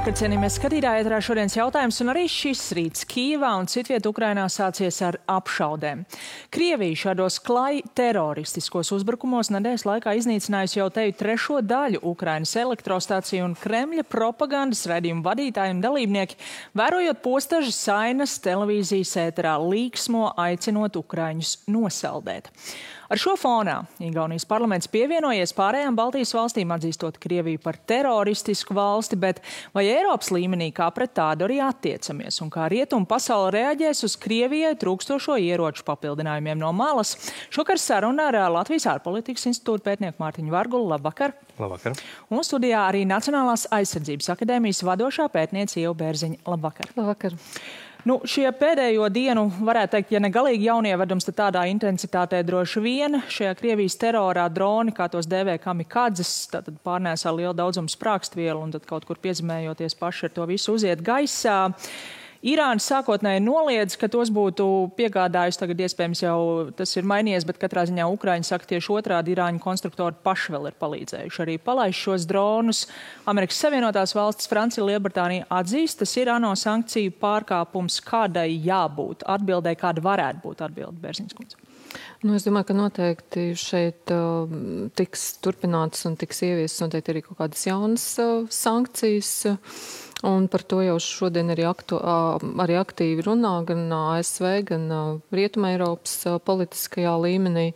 Labvakar, cienījamies skatītāji, ēterā šodienas jautājums, un arī šis rīts Kīvā un citviet Ukrainā sācies ar apšaudēm. Krievija šādos klaj teroristiskos uzbrukumos nedēļas laikā iznīcinājusi jau teju trešo daļu Ukrainas elektrostāciju, un Kremļa propagandas raidījumu vadītāji un dalībnieki, vērojot postažas sainas televīzijas ēterā, līksmo aicinot ukraiņus nosaldēt. Ar šo fonā Igaunijas parlaments pievienojies pārējām Baltijas valstīm, atzīstot Krieviju par teroristisku valsti, bet vai Eiropas līmenī kā pret tādu arī attiecamies un kā rietumu pasaule reaģēs uz Krievijai trūkstošo ieroču papildinājumiem no malas? Šokar saruna ar Latvijas ārpolitikas institūta pētnieku Mārtiņu Vargulu. Labvakar! Labvakar! Un studijā arī Nacionālās aizsardzības akadēmijas vadošā pētniece Ieva Bērziņa. Labvakar! Labvakar! Šie pēdējo dienu, varētu teikt, ja ne galīgi jaunievedums, tad tādā intensitātē droši vien šajā Krievijas terorā droni, kā tos dēvē kamikadzes, tātad pārnēsā lielu daudzumu sprākstvielu un tad kaut kur piezemējoties paši ar to visu uziet gaisā. Irāna sākotnēji noliedz, ka tos būtu piegādājusi, tagad iespējams jau tas ir mainījies, bet katrā ziņā Ukraiņi saka tieši otrādi, Irāņu konstruktori paši vēl ir palīdzējuši arī palaist šos dronus. Amerikas Savienotās valstis, Francija, Lielbritānija atzīst, tas ir ANO sankciju pārkāpums, kādai jābūt atbildēji, kāda varētu būt atbilde, Bērziņas kundze. Es domāju, ka noteikti šeit tiks turpinātas un tiks ieviestas noteikti arī kaut kādas jaunas sankcijas. Un par to jau šodien arī aktīvi runā gan ASV, gan Rietuma Eiropas politiskajā līmenī.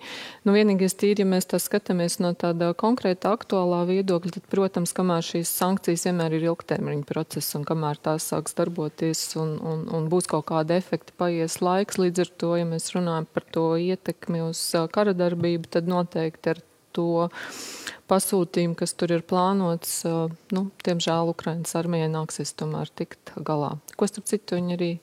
Vienīgais tīri, ja mēs tā skatāmies no tāda konkrēta aktuālā viedokļa, tad, protams, kamēr šīs sankcijas vienmēr ir ilgtermiņa process un kamēr tās sāks darboties un būs kaut kāda efekta, paies laiks. Līdz ar to, ja mēs runājam par to ietekmi uz kara darbību, tad noteikti ar to pasūtījumu, kas tur ir plānots, diemžēl Ukrainas armijai nāksies tomēr tikt galā. Ko starp citu viņi arī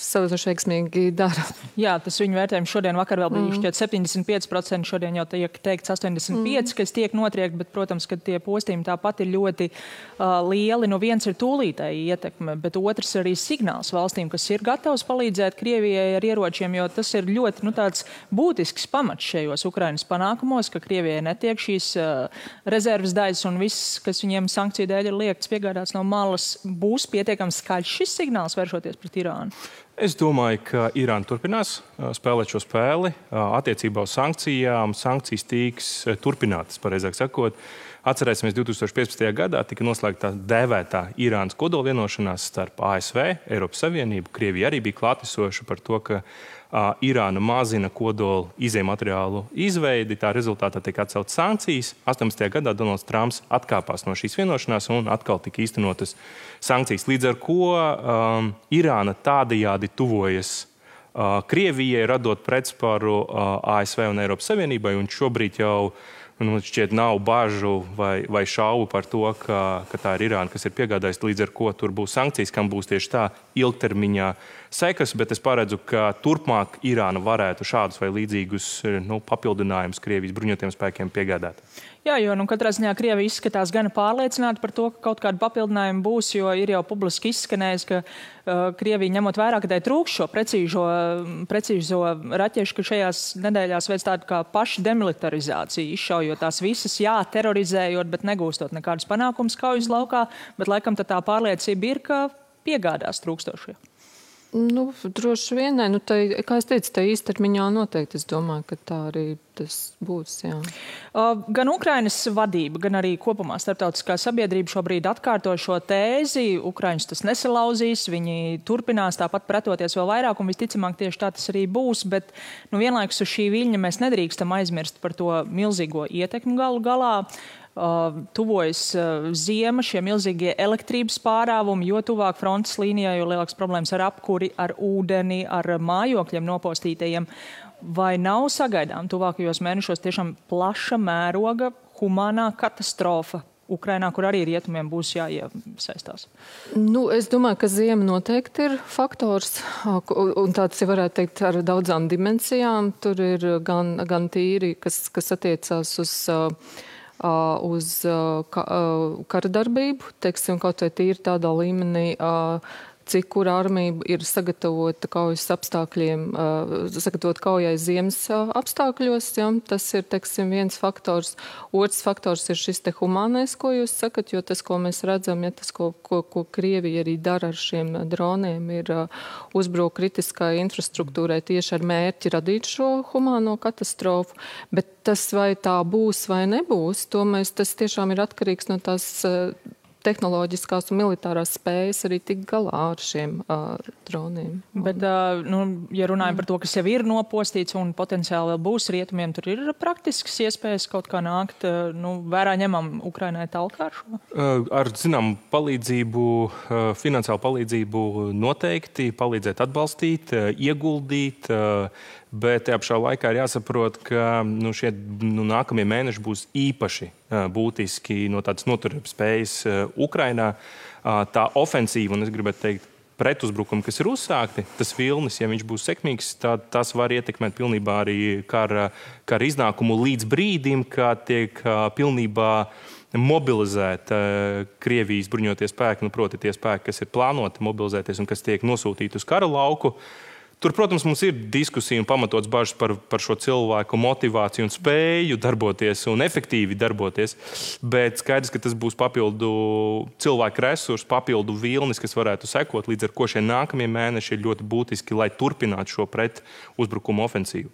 savus veiksmīgi dara. Jā, tas viņu vērtējums šodien vakar vēl bija šķiet 75%, šodien jau tiek teikts 85%, kas tiek notriekt, bet, protams, ka tie postījumi tāpat ir ļoti lieli. Viens ir tūlītēji ietekme, bet otrs arī signāls valstīm, kas ir gatavs palīdzēt Krievijai ar ieročiem, jo tas ir ļoti tāds būtisks pamats šajos Ukrainas panākumos, ka Krievijai netiek šīs rezerves daļas un viss, kas viņiem sankciju dēļ ir liekts piegādāts no malas, būs pietiekami skaļš šis signāls vēršoties pret Irānu. Es domāju, ka Irāna turpinās spēlēt šo spēli attiecībā uz sankcijām. Sankcijas tiks turpinātas, pareizāk sakot. Atcerēsimies, 2015. gadā tika noslēgta dēvētā Irānas kodolvienošanās starp ASV, Eiropas Savienību. Krievija arī bija klātesoša par to, ka Irāna mazina kodola izejmateriālu izveidi. Tā rezultātā tika atceltas sankcijas. 18. gadā Donalds Trumps atkāpās no šīs vienošanās un atkal tika īstenotas sankcijas. Līdz ar ko Irāna tādajādi tuvojas Krievijai, radot pretsparu ASV un Eiropas Savienībai, un šobrīd jau šķiet nav bažu vai šaubu par to, ka tā ir Irāna, kas ir piegādājusi, līdz ar ko tur būs sankcijas, kam būs tieši tā ilgtermiņā sekas, bet es paredzu, ka turpmāk Irāna varētu šādus vai līdzīgus papildinājumus Krievijas bruņotajiem spēkiem piegādāt. Jā, jo katrā ziņā Krievija izskatās gana pārliecināta par to, ka kaut kāda papildinājuma būs, jo ir jau publiski izskanējis, ka Krievija ņemot vērā, ka tai trūks šo precīzo raķešu, ka šajās nedēļās veids tādu kā pašu demilitarizāciju, izšaujot tās visas, terorizējot, bet negūstot nekādus panākumus kaujas laukā, bet laikam tā pārliecība ir, ka piegādās trūkstošie. Droši vien, kā es teicu, tā īstermiņā noteikti, es domāju, ka tā arī tas būs, jā. Gan Ukrainas vadība, gan arī kopumā starptautiskā sabiedrība šobrīd atkārto šo tēzi. Ukraiņus tas nesalauzīs, viņi turpinās tāpat pretoties vēl vairāk, un visticamāk tieši tā tas arī būs, bet vienlaikus uz šī viļņa mēs nedrīkstam aizmirst par to milzīgo ietekmi galu galā. Tuvojas ziema, šie milzīgie elektrības pārāvumi, jo tuvāk frontes līnijā, jo lielāks problēmas ar apkuri, ar ūdeni, ar mājokļiem nopostītajiem. Vai nav sagaidām tuvākajos mēnešos tiešām plaša mēroga humānā katastrofa Ukrainā, kur arī rietumiem būs jāiesaistās? Es domāju, ka ziema noteikti ir faktors, un tāds, ja varētu teikt, ar daudzām dimensijām. Tur ir gan tīri, kas attiecās uz kara darbību, teiksim, kaut vai tīri tādā līmenī, cik kura armija ir sagatavota kaujas apstākļiem, sagatavot kaujai ziemas apstākļos. Ja? Tas ir, teiksim, viens faktors. Otrs faktors ir šis te humānais, ko jūs sakat, jo tas, ko mēs redzam, ja tas, ko Krievija arī dara ar šiem droniem, ir uzbruk kritiskai infrastruktūrai tieši ar mērķi radīt šo humāno katastrofu. Bet tas, vai tā būs vai nebūs, tas tiešām ir atkarīgs no tās tehnoloģiskās un militārās spējas arī tikt galā ar šiem droniem. Bet, ja runājam par to, kas jau ir nopostīts un potenciāli vēl būs rietumiem, tur ir praktiskas iespējas kaut kā nākt, vērā ņemam Ukrainai talkā ar šo? Ar, zinām, palīdzību, finansiālu palīdzību noteikti, palīdzēt atbalstīt, ieguldīt, bet tajā pašā laikā ir jāsaprot, ka šie nākamie mēneši būs īpaši būtiski no tādas noturības spējas Ukrainā. Tā ofensīva, un es gribētu teikt, pretuzbrukumi, kas ir uzsākti, tas vilnis, ja viņš būs sekmīgs, tad tas var ietekmēt pilnībā arī kara iznākumu līdz brīdim, kad tiek pilnībā mobilizēt Krievijas bruņotie spēki, proti tie spēki, kas ir plānoti mobilizēties un kas tiek nosūtīti uz kara lauku. Tur, protams, mums ir diskusija un pamatots bažas par šo cilvēku motivāciju un spēju darboties un efektīvi darboties, bet skaidrs, ka tas būs papildu cilvēku resursu, papildu vilnis, kas varētu sekot, līdz ar ko šie nākamie mēneši ir ļoti būtiski, lai turpinātu šo pretuzbrukumu ofensīvu.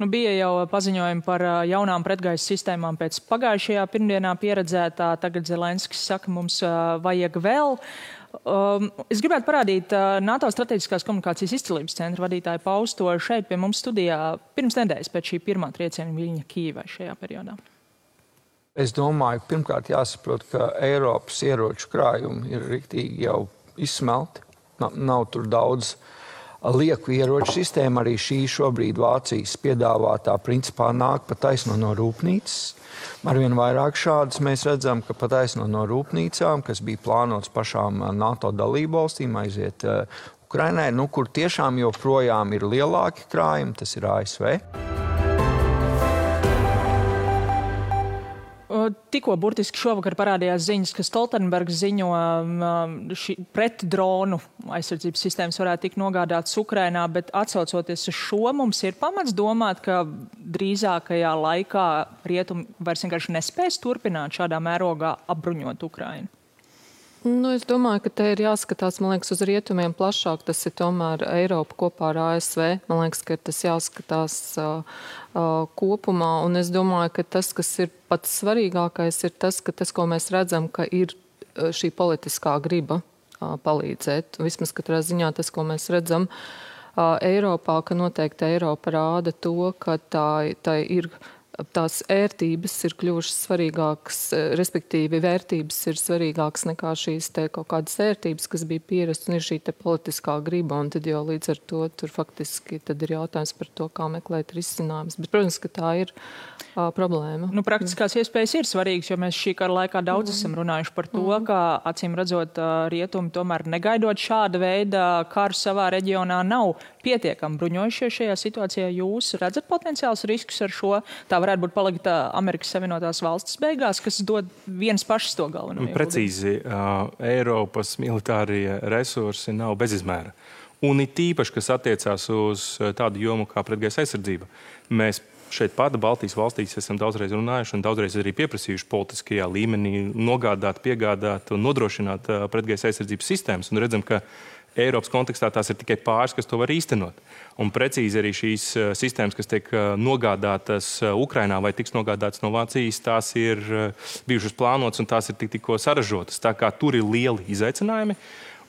Bija jau paziņojumi par jaunām pretgaisa sistēmām pēc pagājušajā pirmdienā pieredzētā. Tagad Zelenskis saka, mums vajag vēl. Es gribētu parādīt NATO strateģiskās komunikācijas izcilības centra vadītāju pausto šeit pie mums studijā pirms nedēļas pēc šī pirmā trieciena Viļņa Kīvai šajā periodā. Es domāju, pirmkārt jāsaprot, ka Eiropas ieroču krājumi ir riktīgi jau izsmelti. Nav tur daudz lieku ieroču sistēma. Arī šī šobrīd Vācijas piedāvātā principā nāk pa taisno no rūpnīcas. Arvien vairāk šādas mēs redzam, ka pa taisno no rūpnīcām, kas bija plānots pašām NATO dalībvalstīm aiziet Ukrainai, kur tiešām joprojām ir lielāki krājumi, tas ir ASV. Tikko burtiski šovakar parādījās ziņas, ka Stoltenbergs ziņo pret dronu aizsardzības sistēmas varētu tikt nogādātas Ukrainā, bet atsaucoties uz šo, mums ir pamats domāt, ka drīzākajā laikā rietumi vairs vienkārši nespēs turpināt šādā mērogā apbruņot Ukrainu. Es domāju, ka te ir jāskatās, man liekas, uz rietumiem plašāk. Tas ir tomēr Eiropa kopā ar ASV. Man liekas, ka tas jāskatās kopumā. Un es domāju, ka tas, kas ir pats svarīgākais, ir tas, ko mēs redzam, ka ir šī politiskā griba palīdzēt. Vismaz katrā ziņā tas, ko mēs redzam Eiropā, ka noteikti Eiropa rāda to, ka tā ir tās ērtības ir kļuvušas svarīgākas, respektīvi vērtības ir svarīgākas nekā šīs te kaut kādas ērtības, kas bija pierast, un ir šī te politiskā griba, un tad jau līdz ar to tur faktiski tad ir jautājums par to, kā meklēt risinājumus. Bet, protams, ka tā ir problēma. Praktiskās iespējas ir svarīgas, jo mēs šī kara laikā daudz esam runājuši par to, ka acīm redzot rietumi tomēr negaidot šāda veida karu savā reģionā nav pietiekami bruņojušies šajā situācijā. Jūs redzat potenciāls riskus ar šo? Tā varētu būt palikt Amerikas Savienotās valstis beigās, kas dod viens pašs to galveno. Precīzi, Eiropas militārie resursi nav bezizmēra. Un it īpaši, kas attiecās uz tādu jomu kā pretgaisa aizsardzība. Mēs šeit pat Baltijas valstīs esam daudzreiz runājuši un daudzreiz arī pieprasījuši politiskajā līmenī nogādāt, piegādāt un nodrošināt pretgaisa aizsardzības sistēmas. Un redzam, ka Eiropas kontekstā tās ir tikai pāris, kas to var īstenot. Un precīzi arī šīs sistēmas, kas tiek nogādātas Ukrainā vai tiks nogādātas no Vācijas, tās ir bijušas plānotas un tās ir tikko saražotas. Tā kā tur ir lieli izaicinājumi.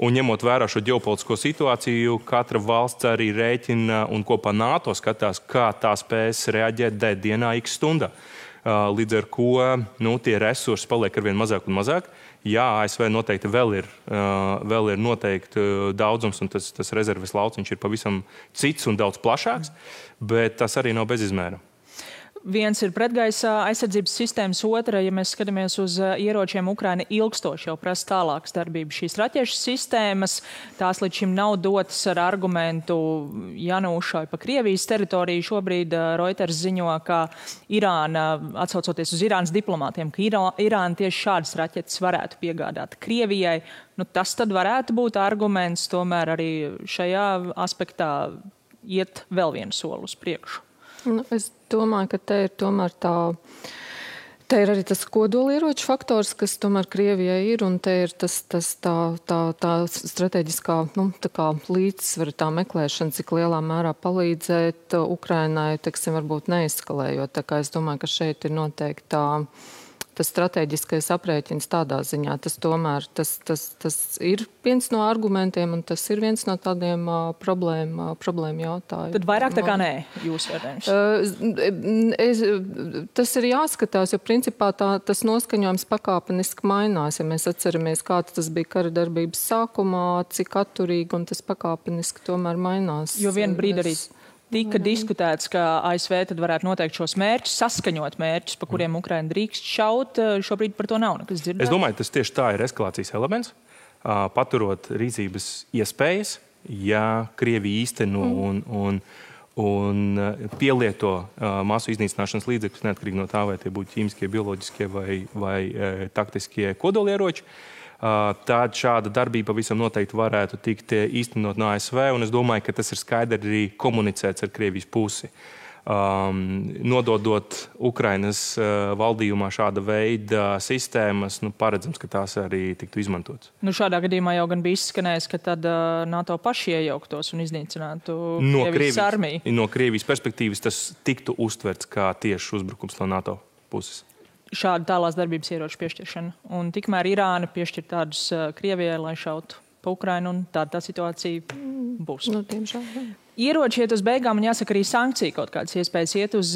Un ņemot vērā šo ģeopolitisko situāciju, katra valsts arī rēķina un kopā NATO skatās, kā tā spēs reaģēt dienā x stundā. Līdz ar ko tie resursi paliek arvien mazāk un mazāk. Jā, ASV noteikti vēl ir noteikti daudzums, un tas rezerves lauciņš ir pavisam cits un daudz plašāks, bet tas arī nav bez izmēra. viens ir pretgaisa aizsardzības sistēmas, otra, ja mēs skatāmies uz ieročiem, Ukraina ilgstoši jau prasa tālākas darbības. Šīs raķešu sistēmas, tās līdz šim nav dotas ar argumentu janūšai pa Krievijas teritoriju. Šobrīd Reuters ziņo, ka Irāna, atsaucoties uz Irānas diplomātiem, ka Irāna tieši šādas raķetes varētu piegādāt Krievijai. Nu, tas tad varētu būt arguments tomēr arī šajā aspektā iet vēl vienu soli uz priekšu. Nu, es domāju, ka te ir tomēr te ir arī tas kodolieroču faktors, kas tomēr Krievijai ir, un te ir tā strateģiskā, tā kā līdzsvara tā meklēšana, cik lielā mērā palīdzēt Ukrainai, teiksim, varbūt neeskalējot. Tā kā es domāju, ka šeit ir noteikti tas strateģiskais aprēķins tādā ziņā. Tas tomēr tas ir viens no argumentiem, un tas ir viens no tādiem problēmu jautājumiem. Tad vairāk tā kā nē, jūs vērtējums? Tas ir jāskatās, jo principā tas noskaņojums pakāpeniski mainās. Ja mēs atceramies, kāds tas bija kara darbības sākumā, cik atturīgi, un tas pakāpeniski tomēr mainās. Jo vienu brīdi arī tika diskutēts, ka ASV tad varētu noteikt šos mērķus, saskaņot mērķus, pa kuriem Ukraina drīkst šaut. Šobrīd par to nav nekas dzirdēts. Es domāju, tas tieši tā ir eskalācijas elements, paturot rīcības iespējas, ja Krievija īsteno un pielieto masu iznīcināšanas līdzekļus, neatkarīgi no tā, vai tie būtu ķīmiskie, bioloģiskie vai taktiskie kodolieroči. Tad šāda darbība pavisam noteikti varētu tikt īstenot no ASV, un es domāju, ka tas ir skaidri arī komunicēts ar Krievijas pusi. Nododot Ukrainas valdījumā šāda veida sistēmas, paredzams, ka tās arī tiktu izmantotas. Šādā gadījumā jau gan bija izskanējis, ka tad NATO paši iejauktos un iznīcinātu Krievijas armiju. No Krievijas perspektīvas tas tiktu uztverts kā tieši uzbrukums no NATO puses. Šāda tālās darbības ieroču piešķiršana. Un tikmēr Irāna piešķir tādus Krievijai, lai šautu pa Ukrainu, un tāda situācija būs. Ieroči iet uz beigām, un jāsaka arī sankcija kaut kādas iespējas iet uz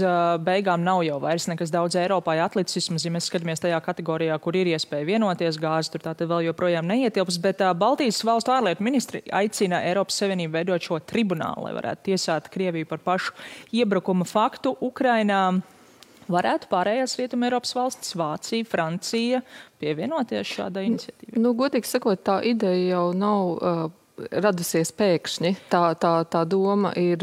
beigām nav jau vairs nekas daudz Eiropā atlicis, ja mēs skatāmies tajā kategorijā, kur ir iespēja vienoties, gāzi tur tātad vēl joprojām neietilps, bet Baltijas valstu ārlietu ministri aicina Eiropas Savienību veidot šo tribunālu, lai varētu tiesāt Krieviju par pašu iebrukuma faktu Ukrainā. Varētu pārējās Rietuma Eiropas valstis, Vācija, Francija pievienoties šādai iniciatīvai? Godīgi sakot, tā ideja jau nav radusies pēkšņi. Tā doma ir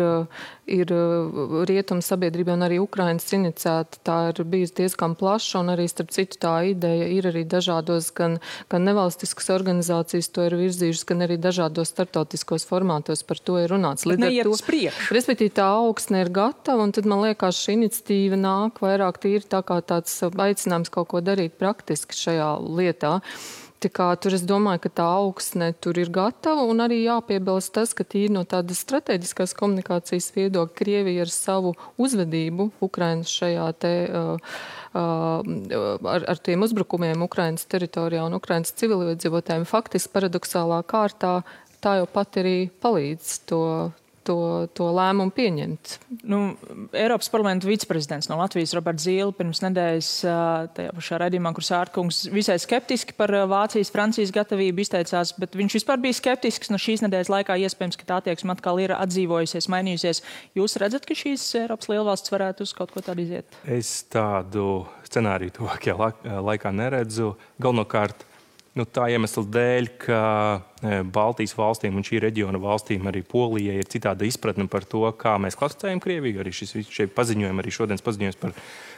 Rietuma sabiedrība un arī Ukrainas iniciēta. Tā ir bijusi diezgan plaša, un arī starp citu tā ideja ir arī dažādos gan nevalstiskas organizācijas to ir virzījušas, gan arī dažādos starptautiskos formātos par to ir runāts. Neiet uz priekšu. Respektīvi tā augsne ir gatava, un tad man liekas šī iniciatīva nāk vairāk tīri tā kā tāds aicinājums kaut ko darīt praktiski šajā lietā. Tur es domāju, ka tā augsne tur ir gatava, un arī jāpiebilst tas, ka tīri no tādas strateģiskās komunikācijas viedokļa Krievija ar savu uzvedību Ukrainas šajā ar tiem uzbrukumiem Ukrainas teritorijā un Ukrainas civiliedzīvotājiem faktiski paradoxālā kārtā tā jau pat arī palīdz to lēmumu pieņemt. Eiropas parlamenta viceprezidents no Latvijas Roberts Zīle pirms nedēļas tajā pašā raidījumā, kur Sārtkungs visai skeptiski par Vācijas, Francijas gatavību izteicās, bet viņš vispār bija skeptisks. No šīs nedēļas laikā iespējams, ka tā attieksme atkal ir atdzīvojusies, mainījusies. Jūs redzat, ka šīs Eiropas lielvalstis varētu uz kaut ko tādu iziet? Es tādu scenāriju tuvākajā laikā neredzu. Galvenokārt tā iemesla dēļ, ka Baltijas valstīm un šī reģiona valstīm, arī Polijai, ir citāda izpratne par to, kā mēs klasificējam Krieviju. Arī šie paziņojumi, arī šodienas paziņojums par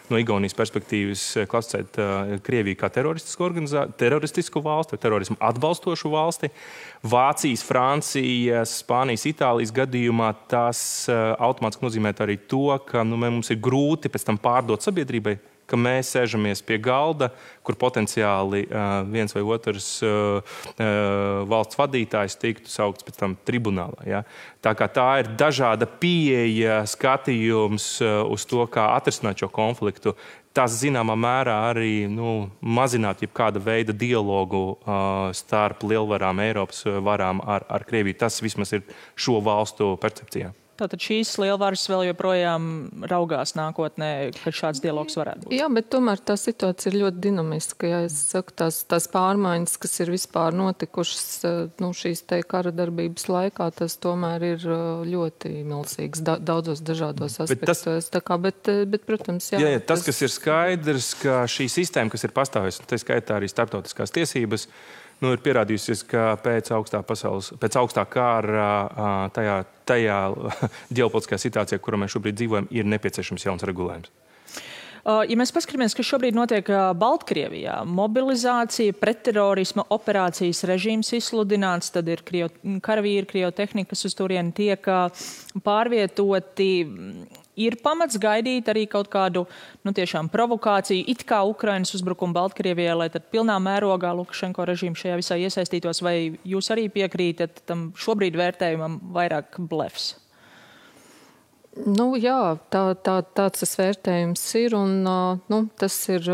no Igaunijas perspektīvas klasificēt Krieviju kā teroristisku valsti vai terorismu atbalstošu valsti. Vācijas, Francijas, Spānijas, Itālijas gadījumā tas automātiski nozīmē arī to, ka mums ir grūti pēc tam pārdot sabiedrībai, ka mēs sēžamies pie galda, kur potenciāli viens vai otrs valsts vadītājs tiktu saukts pēc tam tribunālā. Ja? Tā kā tā ir dažāda pieeja, skatījums uz to, kā atrisināt šo konfliktu. Tas zināmā mērā arī mazināt jebkāda veida dialogu starp lielvarām, Eiropas varām ar Krieviju. Tas vismaz ir šo valstu percepcijā. Tātad šīs lielvaras vēl joprojām raugās nākotnē, kad šāds dialogs varētu būt. Jā, bet tomēr tā situācija ir ļoti dinamiska. Ja es saku, tās pārmaiņas, kas ir vispār notikušas šīs te kara darbības laikā, tas tomēr ir ļoti milzīgs daudzos dažādos aspektos. Bet, protams, jā. Jā, tas, kas ir skaidrs, ka šī sistēma, kas ir pastāvējusi, tā skaitā arī starptautiskās tiesības, ir pierādījusies, ka pēc augstā kara tajā ģeopolitiskajā situācijā, kurā mēs šobrīd dzīvojam, ir nepieciešams jauns regulējums. Ja mēs paskatāmies, kas šobrīd notiek Baltkrievijā, mobilizācija, pretterorisma operācijas režīms izsludināts, tad ir karavīri, krievu tehnika, kas uz turieni tiek pārvietoti. Ir pamats gaidīt arī kaut kādu, tiešām provokāciju, it kā Ukrainas uzbrukumu Baltkrievijai, lai tad pilnā mērogā Lukašenko režīms šajā visā iesaistītos, vai jūs arī piekrītat tam šobrīd vērtējumam vairāk blefs? Jā, tāds tas vērtējums ir, un tas ir...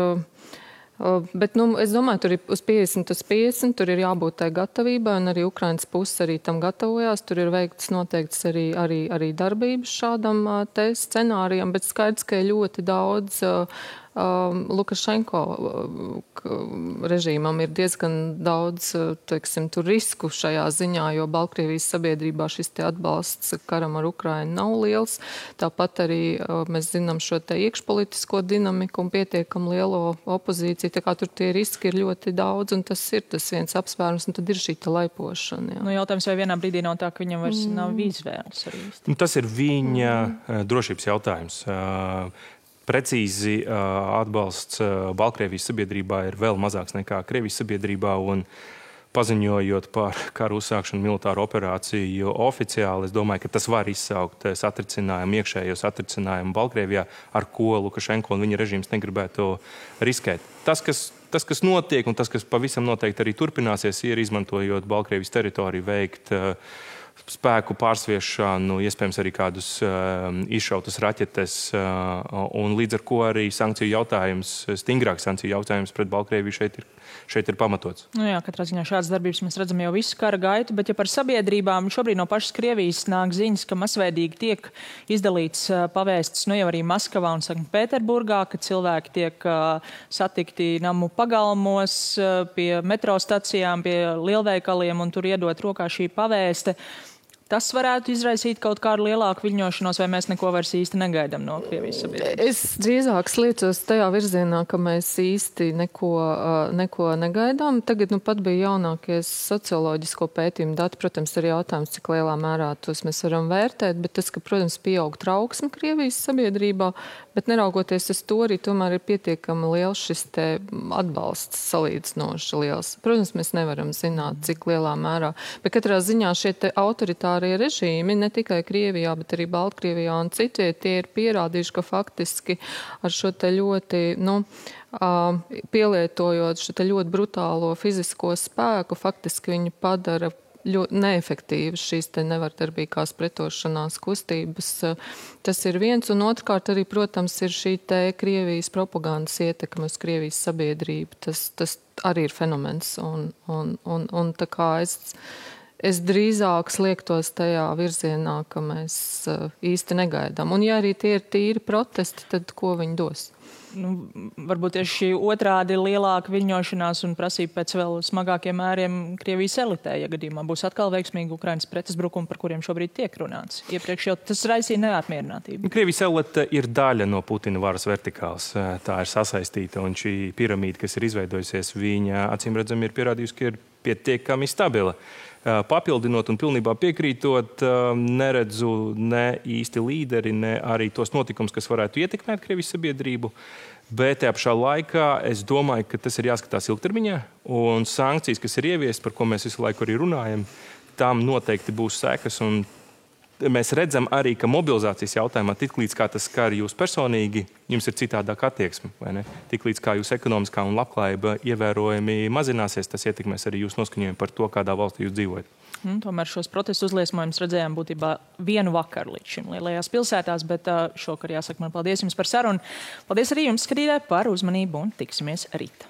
Bet, es domāju, tur ir uz 50/50, tur ir jābūt tai gatavībai, un arī Ukrainas puse arī tam gatavojās. Tur ir veikts noteikts arī darbības šādam te scenārijam, bet skaidrs, ka ir ļoti daudz Lukašenko režīmam ir diezgan daudz, tur risku šajā ziņā, jo Baltkrievijas sabiedrībā šis te atbalsts karam ar Ukrainu nav liels. Tāpat arī mēs zinām šo te iekšpolitisko dinamiku un pietiekam lielo opozīciju, tā kā tur tie riski ir ļoti daudz, un tas ir tas viens apsvērums, un tad ir šī te laipošana. Jā. Jautājums, vai vienā brīdī nav tā, ka viņam vairs nav izvēles arī? Tas ir viņa drošības jautājums. Precīzi atbalsts Baltkrievijas sabiedrībā ir vēl mazāks nekā Krievijas sabiedrībā, un paziņojot par karu uzsākšanu militāru operāciju oficiāli, es domāju, ka tas var izsaukt iekšējo satricinājumu Baltkrievijā, ar ko Lukašenko un viņa režīms negribētu riskēt. Tas, kas notiek, un tas, kas pavisam noteikti arī turpināsies, ir izmantojot Baltkrievijas teritoriju veikt spēku pārsviešanu, iespējams arī kādus izšautas raķetes, un līdz ar ko arī stingrāks sankciju jautājums pret Baltkrieviju šeit ir pamatots. Jā, katrā ziņā šādas darbības mēs redzam jau visu kara gaitu, bet ja par sabiedrībām šobrīd no pašas Krievijas nāk ziņas, ka masveidīgi tiek izdalīts pavēstis, jau arī Maskavā un Sanktpēterburgā, ka cilvēki tiek satikti namu pagalmos, pie metro stacijām, pie lielveikaliem, un tur iedot rokā šī pavēste. Tas varētu izraisīt kaut kādu lielāku viļņošanos, vai mēs neko vairs īsti negaidām no Krievijas sabiedrības? Es drīzāk sliecos tajā virzienā, ka mēs īsti neko negaidām. Tagad pat bija jaunākie socioloģisko pētījumu dati. Protams, ir jautājums, cik lielā mērā tos mēs varam vērtēt, bet tas, ka, protams, pieaug trauksme Krievijas sabiedrībā, bet neraugoties uz to arī tomēr ir pietiekami liels šis te atbalsts salīdzinoši liels. Protams, mēs nevaram zināt, cik lielā mērā, bet katrā ziņā šie te autoritāri režīmi, ne tikai Krievijā, bet arī Baltkrievijā un citviet, tie ir pierādījuši, ka faktiski ar šo te ļoti, pielietojot šo te ļoti brutālo fizisko spēku, faktiski viņi padara ļoti neefektīvas šīs te nevardarbīgās pretošanās kustības. Tas ir viens, un otrkārt arī, protams, ir šī te Krievijas propagandas ietekme uz Krievijas sabiedrību. Tas arī ir fenomens, un tā kā es drīzāk sliektos tajā virzienā, ka mēs īsti negaidām. Un ja arī tie ir tīri protesti, tad ko viņi dos? Varbūt tieši šī otrādi lielāka viļņošanās un prasība pēc vēl smagākiem mēriem Krievijas elitē, ja gadījumā būs atkal veiksmīgi Ukrainas pretuzbrukumi, par kuriem šobrīd tiek runāts. Iepriekš jau tas raisīja neapmierinātību. Krievijas elite ir daļa no Putina varas vertikāls. Tā ir sasaistīta, un šī piramīda, kas ir izveidojusies, viņa acīm redzami ir pierādījusi, ka ir pietiekami stabila. Papildinot un pilnībā piekrītot, neredzu ne īsti līderi, ne arī tos notikumus, kas varētu ietekmēt Krievijas sabiedrību. Bet tajā pašā laikā es domāju, ka tas ir jāskatās ilgtermiņā, un sankcijas, kas ir ieviestas, par ko mēs visu laiku arī runājam, tām noteikti būs sekas. Un mēs redzam arī, ka mobilizācijas jautājumā tiklīdz kā tas skar jūs personīgi, jums ir citādāk attieksme, vai ne? Tiklīdz kā jūs ekonomiskā un labklājība ievērojami mazināsies, tas ietekmēs arī jūs noskaņojumu par to, kādā valstī jūs dzīvojat. Tomēr šos protestu uzliesmojumus redzējām būtībā vienu vakaru līdz šim lielajās pilsētās, bet šokar jāsaka man paldies jums par sarunu. Paldies arī jums, skatītāji, par uzmanību un tiksimies rīt.